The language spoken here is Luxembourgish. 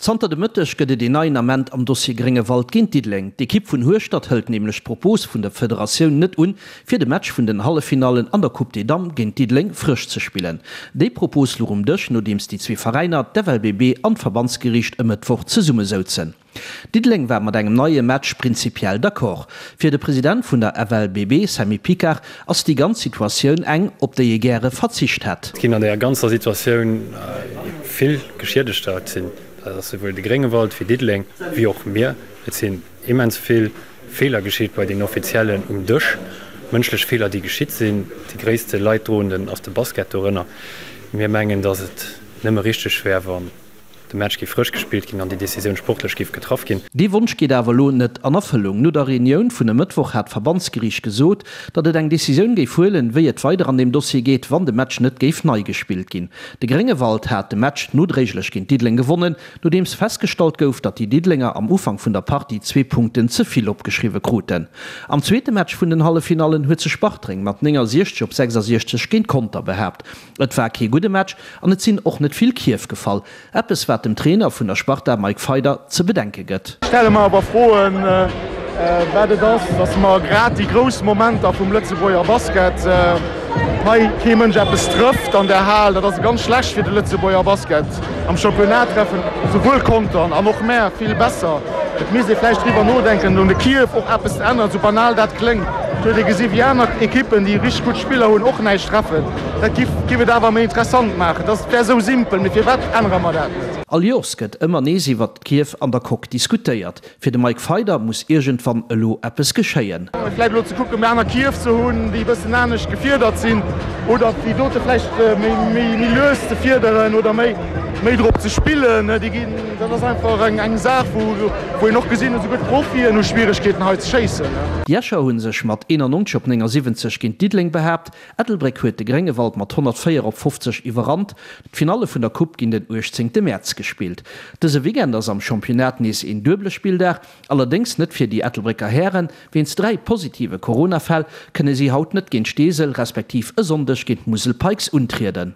Zanter de Mëtteg gëtt et een neien Ament am Dossier Gréngewald géint Diddeleng. D'Ekipp vun Hueschtert hëlt nämlech d'Propos vun der Federatioun net un, fir de Match vun den Halleffinallen an der Coupe des Dames géint Diddeleng frësch ze spillen. Déi Propos luch um Dësch, nodeems déi zwee Veräiner, d'FLBB an d'Verbandsgeriicht e Mëttwoch zesummesouzen. Diddeleng war mat engem neie Match prinzipiell d'accord. Fir de President vun der FLBB, Sammy Picard, ass déi ganz Situatioun eng, op déi ee gäre verzicht hätt. Et ginn an där ganzer Situatioun vill Geschiedegter. Et sinn, dat ass souwuel de Gréngewald wéi Diddeleng, wéi och mir. Et sinn immens vill Feeler geschitt bei den Offiziellen um Dësch, mënschlech Feeler, déi geschitt sinn. Déi gréisste Leidroenden ass de Basket dorënner. Mir mengen, datt et nëmme richteg wär, wann De Match géif frësch gespillt ginn an déi Decisioun sportlech géif getraff ginn. Dee Wonsch geet awer elo net an Erfëllung. No der Reunioun vun e Mëttwoch hat d'Verbandsgeriicht gesot, datt et eng Decisioun géif huelen, wéi et weider an deem Dossier geet, wann de Match net géif nei gespillt ginn. De Gréngewald hat de Match nodréiglech géint Diddeleng gewonnen, nodeems festgestallt gouf, datt déi Diddelenger am Ufank vun der Partie zwee Punkten ze vill opgeschriwwe kruten. Am zweete Match vun den Halleffinallen huet sech Bartreng mat 69 op 66 géint Conter behaapt. Et war kee gudde Match an et sinn och net vill Kierf gefall. Eppes wat dem Trainer vun der Sparta Mike Feider ze bedenke gëtt. Ech stelle mer awer Froen, wat et ass, datt mer grad déi grouss Momenter vum Lëtzebuerger Basket hei kee Mënsch eppes trëfft an der Hal. Dat ass ganz schlecht fir de Lëtzebuerger Basket. Am Championnat treffen souwuel Contern an och mär vill besser. Et misst ee vläicht driwwer nodenken, un de Kierf och eppes ze änneren, sou banal dat kléngt. Et huet ee gesi wéi aner Ekippen, déi richteg gutt Spiller hunn, och näischt treffen. Dat giff giff et awer méi interessant maachen. Dat wär esou simpel, mee firwat ännere mer dat net? All Joers gëtt ëmmer nees iwwert d'Kierf an der Coque diskutéiert. Fir de Mike Feider muss iergendwann elo eppes geschéien. Vläicht elo ze kucken, méi aner Kierf ze hunn, déi e bëssen anescht gefiedert sinn, oder déi dote vläicht méi méi lues ze fiederen oder méi méi drop ze spillen. Déi ginn, dat ass einfach eng eng Saach, wou wou een och gesinn huet, esouguer d'Profien hu Schwieregkeeten hei ze schéissen. Déi Escher hu sech mat 91 op 79 géint Diddeleng behaapt. Ettelbréck huet de Gréngewald mat 104 op 50 iwwerrannt. D'Finalle vun der Coupe ginn den 18 Mäerz gespillt. Dëse Weekend ass am Championnat nees een duebele Spilldag, allerdéngs net fir déi Ettelbrécker Hären. Wéinst 3 positive Corona-Fäll kënne si haut net géint Steesel, respektiv e Sonndeg géint d'Musel Pikes untrieden.